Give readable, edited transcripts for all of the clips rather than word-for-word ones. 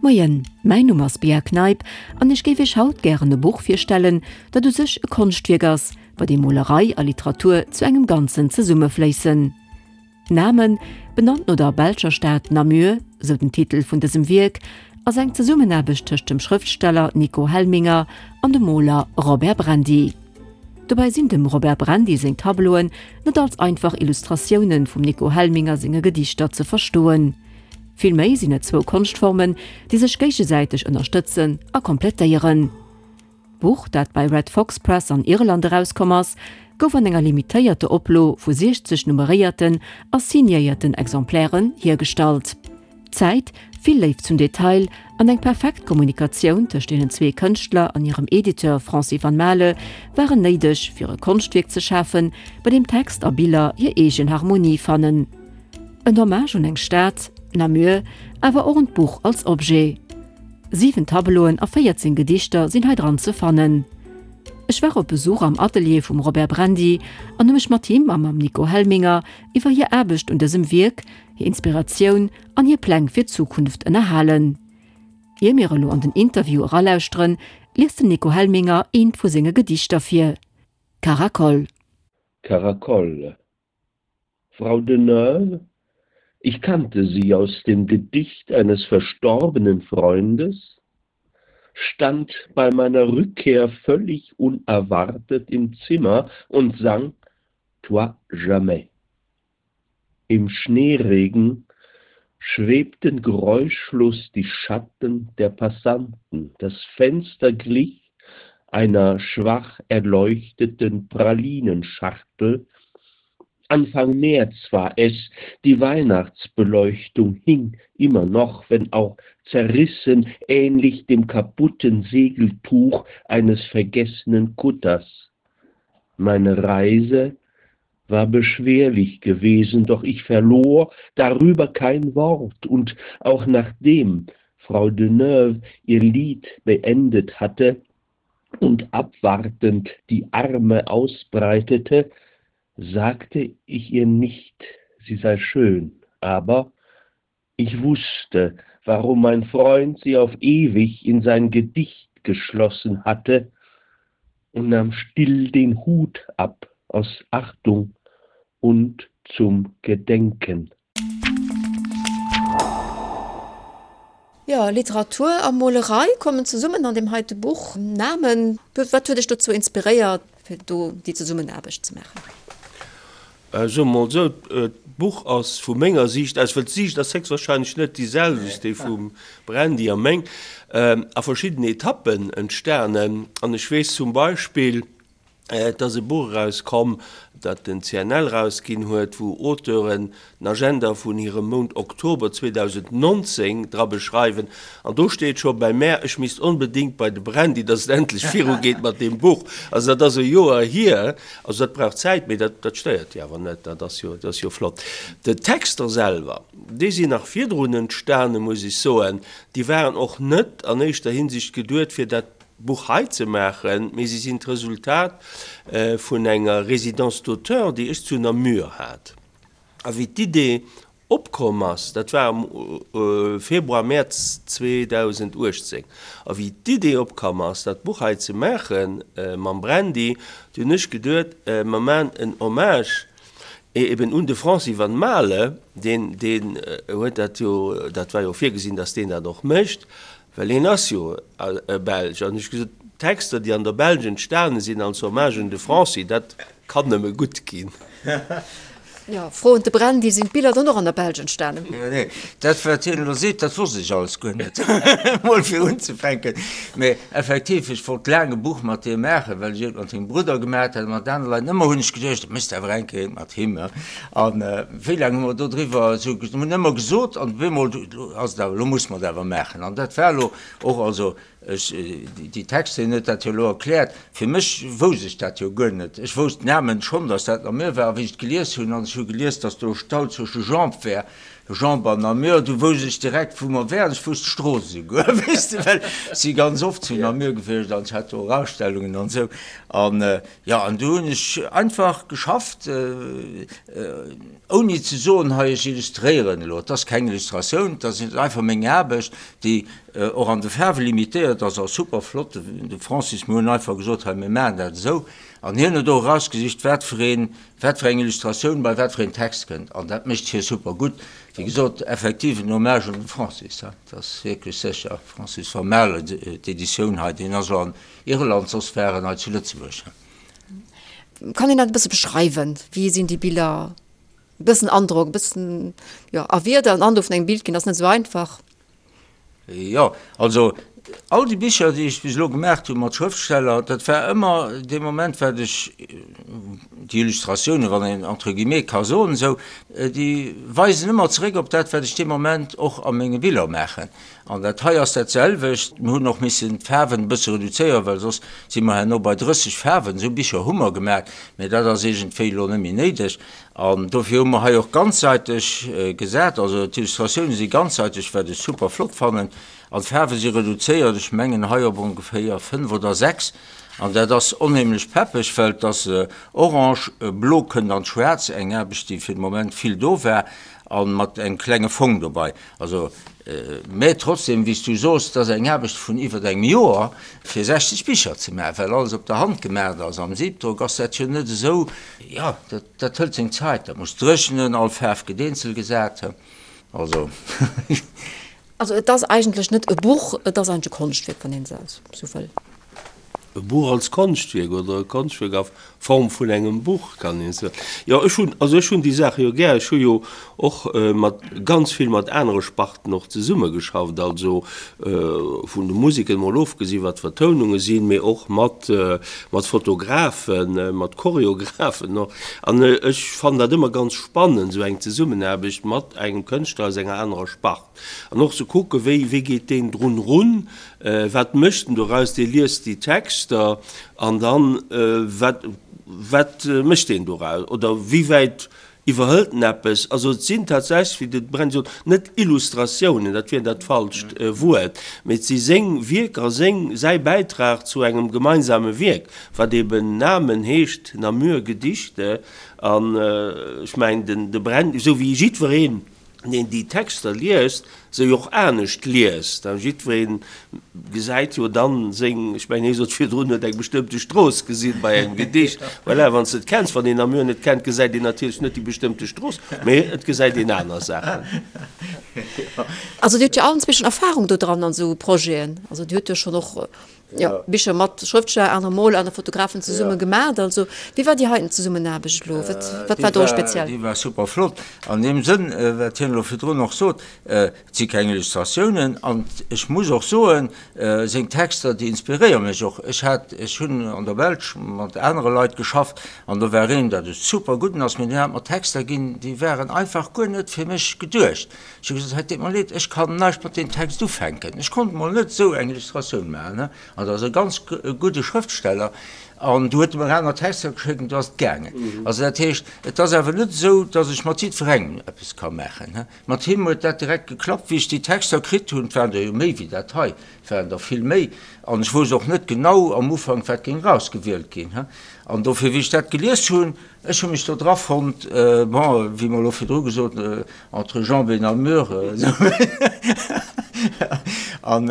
Moien, mäin Numm ass Bea Kneip an ech géif iech haut gären e Buch virstellen, dat u sech e Konschtwierk ass, bei deem Molerei a Literatur zu engem Ganzen zesummefléissen. Namen, benannt no der belscher Stad Namur, sou den Titel vun dësem Wierk, ass eng Zesummenaarbecht tëscht dem Schrëftsteller Nico Helminger an dem Moler Robert Brandy. Dobäi sinn dem Robert Brandy seng Tableauen net als einfach Illustratioune vum Nico Helminger senge Gedichter ze verstoen. Villméi sinn et zwou Konschtformen, déi sech géigesäiteg ënnerstëtzen a komplettéieren. D'Buch, dat bei Red Fox Press an Irland erauskomm ass, gouf an enger limitéierte Oplo vu 60 nummeréierten a signéierten Exemplairen hiergestallt. Zäit, vill Léift zum Detail an eng perfekt Kommunikatioun tëscht deenen zwee Kënschtler an hirem Editeur Francis Van Maele waren néideg, fir e Konschtwierk ze schafen, bei deem Text a Biller hir eegen Harmonie fannen. En Hommage un eng Stad, Namur, awer och un d'Buch als Objet. 7 Tableauen a 14 Gedichter sinn hei dran ze fannen. Ech war op Besuch am Atelier vum Robert Brandy an hu mech mat him a mam Nico Helminger iwwer hir Aarbecht un dësem Wierk, hir Inspiratioun an hir Pläng fir d'Zukunft ënnerhalen. Ier mir elo an den Interview eralauschteren, liest den Nico Helminger eent vu senge Gedichter vir, Caracol. Caracol, Frau Deneuve, ich kannte sie aus dem Gedicht eines verstorbenen Freundes, stand bei meiner Rückkehr völlig unerwartet im Zimmer und sang Toi jamais. Im Schneeregen schwebten geräuschlos die Schatten der Passanten. Das Fenster glich einer schwach erleuchteten Pralinenschachtel. Anfang März war es, die Weihnachtsbeleuchtung hing immer noch, wenn auch zerrissen, ähnlich dem kaputten Segeltuch eines vergessenen Kutters. Meine Reise war beschwerlich gewesen, doch ich verlor darüber kein Wort und auch nachdem Frau Deneuve ihr Lied beendet hatte und abwartend die Arme ausbreitete, sagte ich ihr nicht, sie sei schön, aber ich wusste, warum mein Freund sie auf ewig in sein Gedicht geschlossen hatte und nahm still den Hut ab aus Achtung und zum Gedenken. Jo, Literatur a Molerei kommen zesummen an deem heite Buch. Namen, wat huet dech dozou inspiréiert, fir do déi Zesummenaarbecht ze maachen? Soe mer mol esou, d'Buch ass vu menger Siicht aus, well d'Siicht ass héchstwahrscheinlech net déi selwecht, déi vum Brandy a meng, a verschiddenen Etappen entstanen. An ech weess zum Beispill, Et ass e Buch erauskomm, dat den CNL erausginn huet, wou Auteuren den Agenda vun hirem Mount Oktober 2019 dra beschreiwen. An do steet scho bei mär, ech misst onbedéngt bei de Brandy, dass et endlech virugeet mat deem Buch. Also dat ass e Joer hier. Also dat brauch Zäit, mee dat dat stéiert jo awer net, dat ass jo dat ass jo flott. D'Texter selwer, déi sinn nach virdrun entstanen, muss ech soen. Déi waren och net an éischter Hinsicht geduet, fir dat Buch hei ze maachen, mee si sinn d'Resultat vun enger Résidence d'auteur, déi ech zu Namur hat. A wéi d'Idee opkomm ass, dat war am Februar, Mäerz 2018, a wéi d'Idee opkomm ass, dat Buch hei ze maache mam Brandy, du hunn ech geduet, mer maachen en Hommage eben un de Francis Van Maele, deen, deen huet dat jo, dat war jo virgesinn, datt deen dat och mécht, Well hien ass jo e Belsch. An ech hu gesot, Texter, déi an der Belsch entstane sinn als Hommage un de Francis, dat kann nëmme gutt ginn. Jo, Fro un de Brandy, Sinn d'Biller dann och an der Belsch entstanen? Nee, dat wat hien elo seet, dat wosst ech alles guer net, mol fir unzefänken. Mee effektiv, ech wollt laang e Buch mat deem maachen, well ech eent mat sengem Brudder gemaat hat a mat anere Leit. Ëmmer hunn ech geduecht, dat méchs de awer eng Kéier eent mat him. An wéi laang hu mer dodriwwer esou, hunn ëmmer gesot, an op eemol, elo ass et awer, elo musse mer et awer maachen. An dat war elo och, also ech, déi Texter, hien huet dat jo elo erkläert, fir mech wousst ech dat jo guer net. Ech wousst d'Namen schonn, datt dat Namur war, a wéi ech et gelies hunn, an ech hu gelies, datt do Stau zwësche Jambes wär. Jambes an Namur, du wousst ech direkt, wou mer wären. Ech wousst d'Strooss esouguer, weess de, well ech si ganz oft zu Namur gewiescht an ech hat do och Ausstellungen an esou. An jo, an du hunn ech einfach geschafft, ouni ze soen, hei ech illustréieren elo. Et ass keng Illustratioun, et ass einfach meng Aarbecht, déi och an de Faarwe limitéiert ass a super flott. De Francis, mir hunn einfach gesot, hei mir maachen dat esou. An hien huet och erausgesicht, wat fir een, wat fir eng Illustratioun bei wat fir een Text kënnt. An dat mécht hie super gutt. Wéi gesot, effektiv en Hommage un de Francis, dat ass wierklech sécher. Francis Vermaele, d'Editioun hei, deen ass elo an Irland, soss war en hei zu Lëtzebuerg. Kann een dat e bësse beschreiwen? Wéi sinn déi Biller? E bëssen Androck, e bëssen, jo, a Wierder en Androck vun engem Bild ginn, ass net esou einfach. Jo, also all déi Bicher, déi ech bis elo gemaacht hu mat Schrëftsteller, dat war ëmmer dee Moment, wat ech déi Illustratiounen, wann een entre guillemets ka soen esou, déi weisen ëmmer zeréck op dat, wat ech dee Moment och a menge Biller maachen. An dat hei ass dat selwecht. Mir hunn och missen d'Faarwen e bësse reduzéieren, well soss si mer herno bei 30 Faarwen. Esou Bicher hu mer gemaach, mä dat ass iergendwéi elo net méi néideg. An dofir hu mer hei och ganzsäiteg gesat. Also d'Illustratioune si ganzsäiteg, wat ech super flott fannen. An d'Faarwe si reduzéiert, ech mengen hei op ongeféier 5 oder 6. An dat ass onheemlech peppeg, well et ass orange, blo kënnt an d'Schwaarz, eng Aarbecht, déi fir de Moment vill do war, a mat engem klenge Fong dobei. Also, mä trotzdem, wéi s du soos, et ass eng Aarbecht vun iwwert engem Joer, fir 60 Bicher ze maachen, well alles op der Hand gemaacht ass. Am Siebdruck ass dat jo net esou, jo, dat, dat hëlt seng Zait, dat muss dréchnen, all Faarf gëtt eenzel gesat, also. Also et ass eigentlech net e Buch, et ass eigentlech e Konschtwierk, wann een et esou wëll. E Buch als Konschtwierk oder e Konschtwierk a Form vun engem Buch, kann een soen. Jo, ech hunn, also ech hunn déi Saache jo gär. Ech hu jo och mat, ganz vill mat anere Sparten och zesummegeschafft, also vun de Museken emol ofgesi wat Vertoununge sinn, mee och mat, mat Fotografen, mat Choreografen och. An ech fannen dat ëmmer ganz spannend, esou eng Zesummenaarbecht mat engem Kënschtler aus enger anerer Spart. An och ze kucken, wéi, wéi geet deen drun erun, wat mécht en doraus, dee liest déi Texter an dann, wat, wat mécht deen doraus oder wéi wäit iwwerhëlt en eppes. Also et sinn tatsächlech, wéi de Brenn sot, net Illustratiounen, dat wier dat falscht Wuert, mee et si seng Wierker, seng, säi Bäitrag zu engem gemeinsame Wierk, wat eben Namen heescht, Namur Gedichte. An ech mengen, den, de Brenn, esou wéi jiddwereen, deen déi Texter liest, se jo och anescht liest. A jiddweree gesäit jo dann seng, ech mengen, hie sot virdrun, huet eng bestëmmte Strooss gesinn bei engem Gedicht. Voilà, wann s de et kenns. Wann een Namur net kennt, gesäit een natierlech net déi bestëmmte Strooss, mee et gesäit een aner Saachen. Also Dir hutt jo allen zwee schonn Erfahrung do dran an esou Projeten. Also Dir hutt jo schonn och Jo, Bicher mat Schrëftsteller, anere Moler, anere Fotografen zesumme gemaacht. Also, wéi war déi heiten Zesummenaarbecht elo? Wat, wat war do speziell? Déi war super flott. An deem Sënn, wat hien elo virdrun och sot, et si keng Illustratiounen. An ech muss och soen, seng Texter, déi inspiréiere mech och. Ech hat, ech hunn an der Belsch mat anere Leit geschafft an do war een, dat e super gudden ass, mee deen hat mer Texter ginn, déi waren einfach guer net fir mech geduecht. Ech hu gesot, Hei, deet mer leed, ech kann näischt mat deem Text ufänken. Ech konnt mol net esou eng Illustratioun maachen. An dat ass e ganz gudde Schrëftsteller. An du huet e mer aner Texter geschéckt an du ass et gaangen. Also dat heescht, et ass awer net esou, datt ech mat jiddwerengem eppes ka maachen. Mat him huet dat direkt geklappt, wéi ech déi Texter kritt hunn. Et waren der jo méi wéi dat hei, et waren der vill méi. An ech wousst och net genau am Ufank, wat géing erausgewielt ginn. An dofir, wéi ech dat gelies hunn, Ech hu mech do dra fonnt, bon, wéi mer elo virdru gesot, entre jambes et Namur. An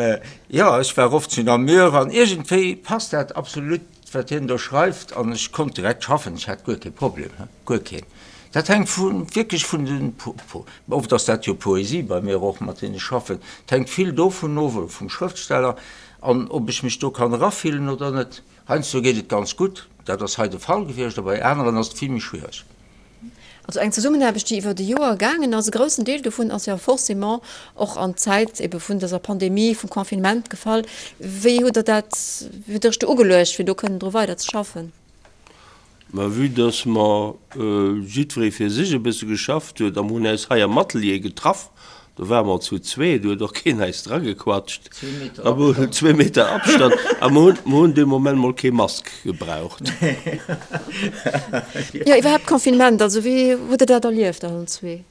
jo, ech war oft zu Namur an iergendwéi passt dat absolut, wat hien do schreift an ech konnt direkt schaffen, ech hat guer kee Problem, guer keen. Dat hänkt vu wierklech vun den, oft ass dat jo Poesie bei mir och, mat deenen ech schaffen, et hänkt vill dovun of, oder vum Schrëftsteller, an ob ech mech do kann erafillen oder net. Heiansdo geet et ganz gutt, dat ass hei de Fall gewiescht, a bei aneren ass et vill méi schwiereg. Also eng Zesummenaarbecht, déi iwwert e Joer gaangen ass. E groussen Deel dovun ass jo forcément och an d'Zäit ebe vun dëser Pandemie, vum Confinement gefall. Wéi hutt Der dat, wéi hutt Der Iech do ugeluecht, fir do kënnen dru weider ze schaffen? Mä vue dass mer jiddweree fir sech e bësse geschafft huet a mer hunn äis hei am Atelier getraff, do ware mer zu zweet, do huet och keen äis dragequatscht, a mer hunn zwee Meter Abstand a mer hunn, mer hunn dee Moment mol kee Mask gebraucht. Jo, iwwerhaapt Confinement, also wéi hutt Der dat erlieft allen zwee?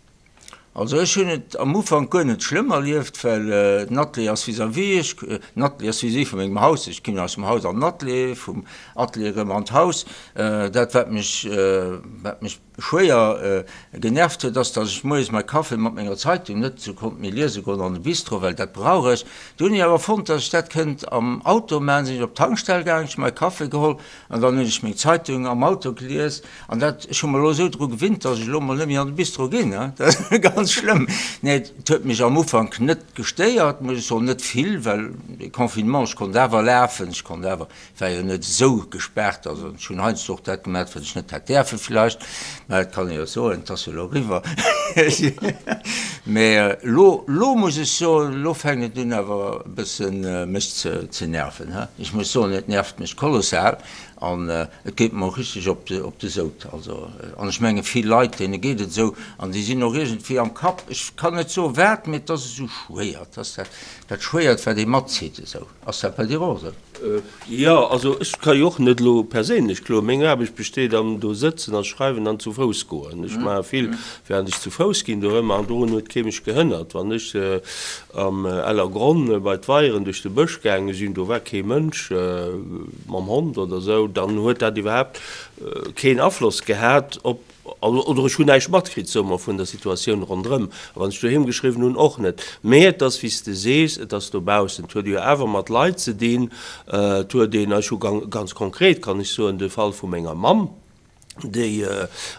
Also ech hunn et am Ufank guer net schlëmm erlieft, well den Atelier ass vis-à-vis, ech, den Atelier ass vis-à-vis vu mengem Haus, ech ginn aus dem Haus an den Atelier, vum Atelier erëm an d'Haus. Dat wat mech, wat mech schwéier genervt huet, ass, datt ech moies mäi Café mat menger Zeitung net esou konnt méi liese goen an de Bistro, well dat brauch ech. Du hunn ech awer fonnt, datt ech dat kënnt am Auto maachen, sinn ech op d'Tankstell gaangen, ech hu mäi Café geholl an dann hunn ech meng Zeitung am Auto gelies. An dat, ech hu mer elo esou dru gewinnt, datt ech elo mol net méi an de Bistro ginn, dat ass ganz schlëmm. Nee, et huet mech am Ufank net gestéiert, muss ech soen, net vill, well de Confinement, ech konnt awer lafen, ech konnt awer war jo net esou gespaart, also ech hunn heiansdo och dat gemat, wat ech net hätt däerfe vläicht, mä dat kann ee jo soen, et ass jo elo eriwwer. Mä elo, elo muss ech soen, elo fänkt et un awer e bësse mech ze nerven, he. Ech muss soen, et nervt mech kolossal an et geet mer och richteg op de, op de Sout. Also, an ech menge vill Leit, deene geet et esou an déi sinn och iergendwéi am Kapp, ech kann net soen wat, mä et ass esou schwéier, et ass dat, dat Schwéiert, wat ee matzitt esou. Ass dat bei dir och esou? Jo, also ech ka jo och net elo perséinlech kloen. Meng Aarbecht besteet am do sëtzen a schreiwen an zu Fouss goen. Ech maache vill während ech zu Fouss ginn dorëmmer an dorun huet kee mech gehënnert. Wann ech am Ellergronn bei d'Weieren duerch de Bësch gaange sinn, do war kee Mënsch mam Hond oder esou, dann huet dat iwwerhaapt keen Afloss gehat op Oder ech hunn näischt matkritt, soe mer, vun der Situatioun ronderëm. A wann ech doheem geschriwwen hunn, och net. Mee et ass, wéi s de sees, et ass dobaussen. Et huet jo awer mat Leit ze dinn. Et huet een, ech hu ganz konkret, kann ech soen, de Fall vu menger Mamm, déi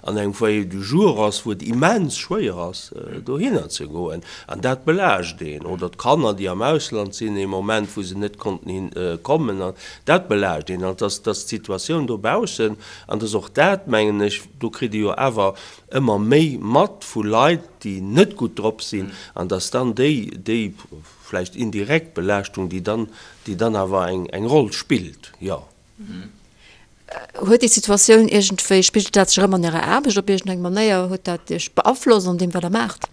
an engem Foyer du jour ass, wou et immens schwéier ass, dohinner ze goen. An dat belaascht een. Oder d'Kanner, déi am Ausland sinn ee Moment, wou se net konnten hin kommen. An dat belaascht een. An et ass d'Situatioun dobaussen. An et ass och dat, mengen ech, do kritt ee jo awer ëmmer méi mat vu Leit, déi net gutt drop sinn, an dass dann déi, déi vläicht indirekt Belaaschtung, déi dann, déi dann awer eng, eng Roll spillt, jo. Huet déi Situatioun iergendwéi, spigelt dat sech erëm an Ärer Aarbecht op iergendeng Manéier? Huet dat Iech beaflosst an deem, wat Der maacht?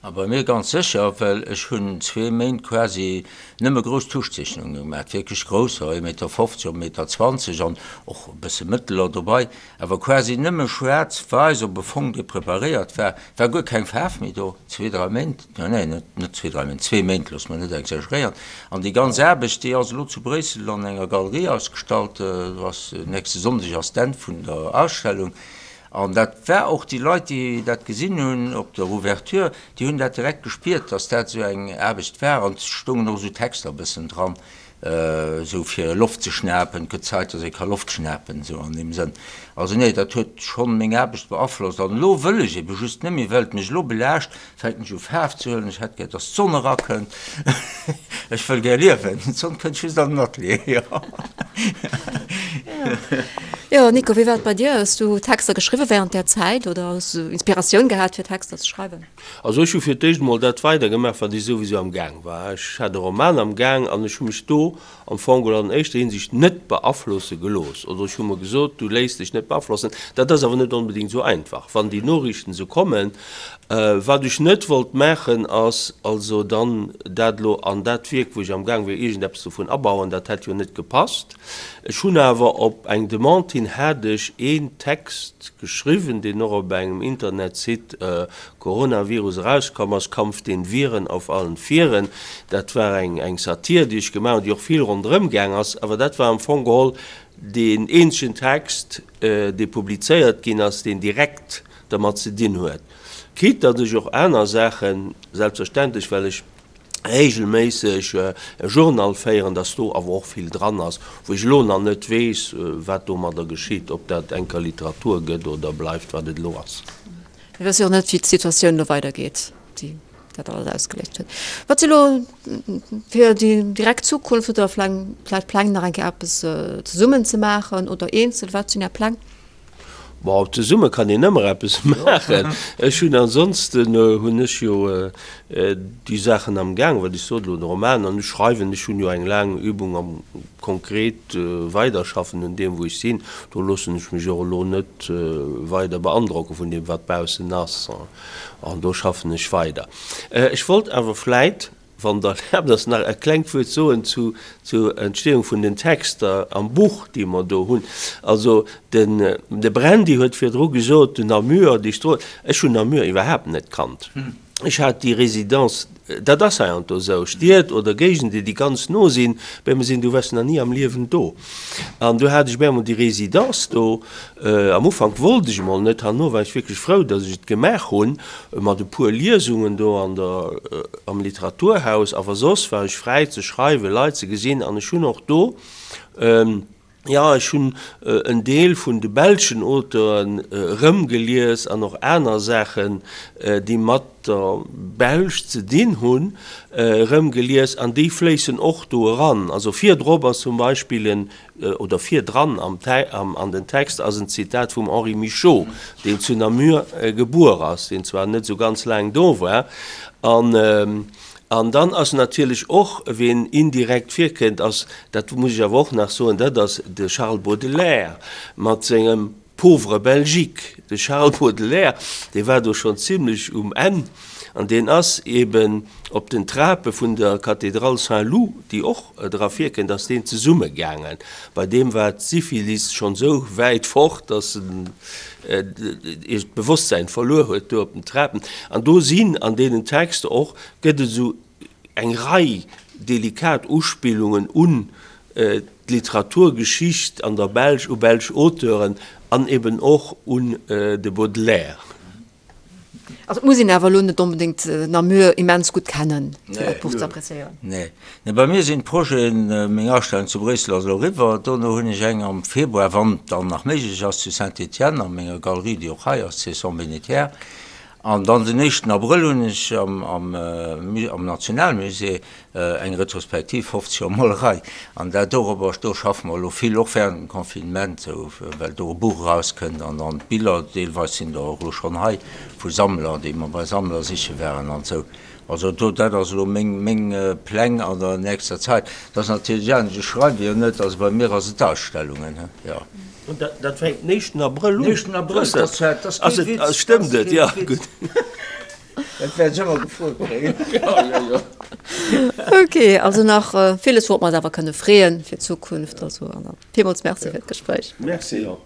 A bei mir ganz sécher, well ech hunn zwee Méint quasi nëmme grouss Tuschzeechnunge gemaach, wierklech grousser, ee Meter 50 op e Meter 20 an och e bësse mëtteler dobei, awer quasi nëmme schwaarz-wäiss op e Fong, dee preparéiert war, war guer keng Faarf méi do, zwee, dräi Méint, nee, net, net zwee, dräi Méint, zwee Méint, loosse mer net exageréieren. An déi ganz Aarbecht, déi ass elo zu Bréissel an enger Galerie ausgestallt, do ass, nächste Sonndeg ass d'Enn vun der Ausstellung. An dat war och déi Leit, déi dat gesinn hunn op der Ouverture, déi hunn dat direkt gespiert, datt dat esou eng Aarbecht war. An et stoungen och esou Texter e bëssen dran, esou fir Loft ze schnapen, et gëtt Zäit, datt ee ka Loft schnapen, esou an deem Sënn. Also nee, dat huet schonn meng Aarbecht beaflosst. An elo wëll ech ebe just net méi, well et mech elo belaascht, Fänken ech u Faarf ze huelen, ech hätt gär dass d'Sonn erakënnt, ech wëll gär liewen, d'Sonn kënnt just an den Atelier, jo. Jo Nico, wéi war et bei dir? Hues du Texter geschriwwen während där Zäit oder hues du Inspiratioun gehat fir Texter ze schreiwen? Also ech hu fir d'éischt emol dat weider gemaach wat ech souwisou am Gaang war. Ech hat e Roman am Gaang an ech hu mech do am Fong geholl an éischter Hinsicht net beaflosse gelooss, oder ech hu mer gesot, du léiss dech net beaflossen. Dat ass awer net onbedéngt esou einfach, wann déi Noriichten esou kommen. Wat ech net wollt maachen, ass also dann dat elo an dat Wierk, wou ech amgaang wier, iergendeppes dovun abauen. Dat hätt jo net gepasst. Ech hunn awer op eng Demande hin hat ech een Text geschriwwen, deen och op engem Internetsite Coronavirus erauskomm ass, Kampf den Viren auf allen Vieren. Dat war eng eng Satir, déi ech gemaach hunn, déi och vill ronderëm gaang ass. Awer dat war am Fong geholl deen eenzegen Text, dee publizéiert ginn ass, deen direkt dermat ze dinn huet. Quitte datt ech och aner Saachen, selbstverständlech, well ech regelméisseg e Journal féieren, dass do awer och vill dran ass, wou ech elo nach net weess, wat domadder geschitt, ob dat enker Literatur gëtt oder bleift, wat et elo ass. Mir wësse jo och net, wéi d'Situatioun elo weidergeet, déi dat alles ausgeléist huet. Wat si elo fir déi direkt Zukunft? Hutt Der vläicht Pläng, nach eng Kéier eppes zesummen ze maachen oder eenzel? Wat sinn Är Pläng? Bon, zesumme kann een ëmmer eppes maachen. Ech hunn ansonsten hunn ech jo déi Saachen am Gaang, wat ech sot elo, de Roman an ech schreiwen. Ech hunn jo eng laang Übung am konkret Weiderschaffen un deem wou ech sinn. Do loossen ech mech och elo net weider beandrocke vun deem wat baussen ass an do schaffen ech weider. Ech wollt awer vläit Wann Der erlaabt ass, nach e klengt Wuert soen zu zur Entstehung vun den Texter am Buch, déi mer do hunn. Also den de Brandy huet virdru gesot, den Namur, déi Strooss, ech hunn Namur iwwerhaapt net kannt. Ech hat déi Résidence, dat ass heiansdo esou, Stied oder Géigenden, déi ganz no sinn, bei mir sinn, du waars nach ni am Liewen do. An du hat ech op eemol déi Résidence do. Am Ufank wollt ech emol net, herno war ech wierklech frou, datt ech et gemaach hunn, mat e puer Liesungen do an der, am Literaturhaus. Awer soss war ech fräi ze schreiwen, Leit ze gesinn an ech hunn och do, Jo, ech hunn en Deel vun de belschen Auteuren erëmgelies an och aner Saachen, déi mat der Belsch ze dinn hunn, erëmgelies an déi fléissen och do eran. Also virdrop ass zum Beispill en, oder virdran am an den Text ass en Zitat vum Henri Michaux, deen zu Namur gebuer ass, deen zwar net esou ganz laang do war. An An dann ass natierlech och, ween indirekt virkënnt, ass, dat muss ech awer och nach soen, dat ass de Charles Baudelaire mat sengem Pauvre Belgique. De Charles Baudelaire, dee war do schonn zimlech um Enn an deen ass eben op den Trape vun der Cathédrale Saint-Loup, déi och dra virkënnt, ass deen zesummegaangen. Bei deem war d'Syphilis schonn esou wäit fort, datt en d'Bewosstsäin verluer huet do op den Trapen. An do sinn an deenen Texter och, gëtt et esou eng Rei delikat Uspillungen un d'Literaturgeschicht an der Belsch, u belsch Auteuren an eben och un de Baudelaire. Also et muss een awer elo net onbedéngt Namur immens gutt kennen, fir dat Buch ze appréciéieren. Nee. Nee, bei mir sinn d'Projeten, meng Ausstellung zu Bréissel ass elo eriwwer, dono hunn ech eng am Februar, wann et dann nach méiglech ass, zu Saint-Étienne a menger Galerie, déi och hei ass, Cesson Bénétière. An dann den éischten Abrëll hunn ech am Nationalmusée Eng Retrospektiv 50 Joer Molerei an dat dorobber, do schaffe mer elo vill, och während dem Confinement, esou well do e Buch erauskënnt an dann d'Biller, deelweis sinn der och elo schonn hei vu Sammler, déi mer bei Sammler siche waren an esou. Also do, dat ass elo meng, meng Pläng an der nächster Zäit. Dat ass natierlech anescht, ech schreiwe jo net, also bei mir ass et Ausstellungen, jo. An dat, dat fänkt den éischten Abrëll un? Den éischten Abrëll, dat ass kee Witz. Stëmmt et? Jo, gutt. Dat wäert ech ëmmer gefrot kréien. Ok, also nach villes wourop mer eis awer kënne freeën fir d'Zukunft. Also an dann villmools Merci fir d'Gespréich. Merci och.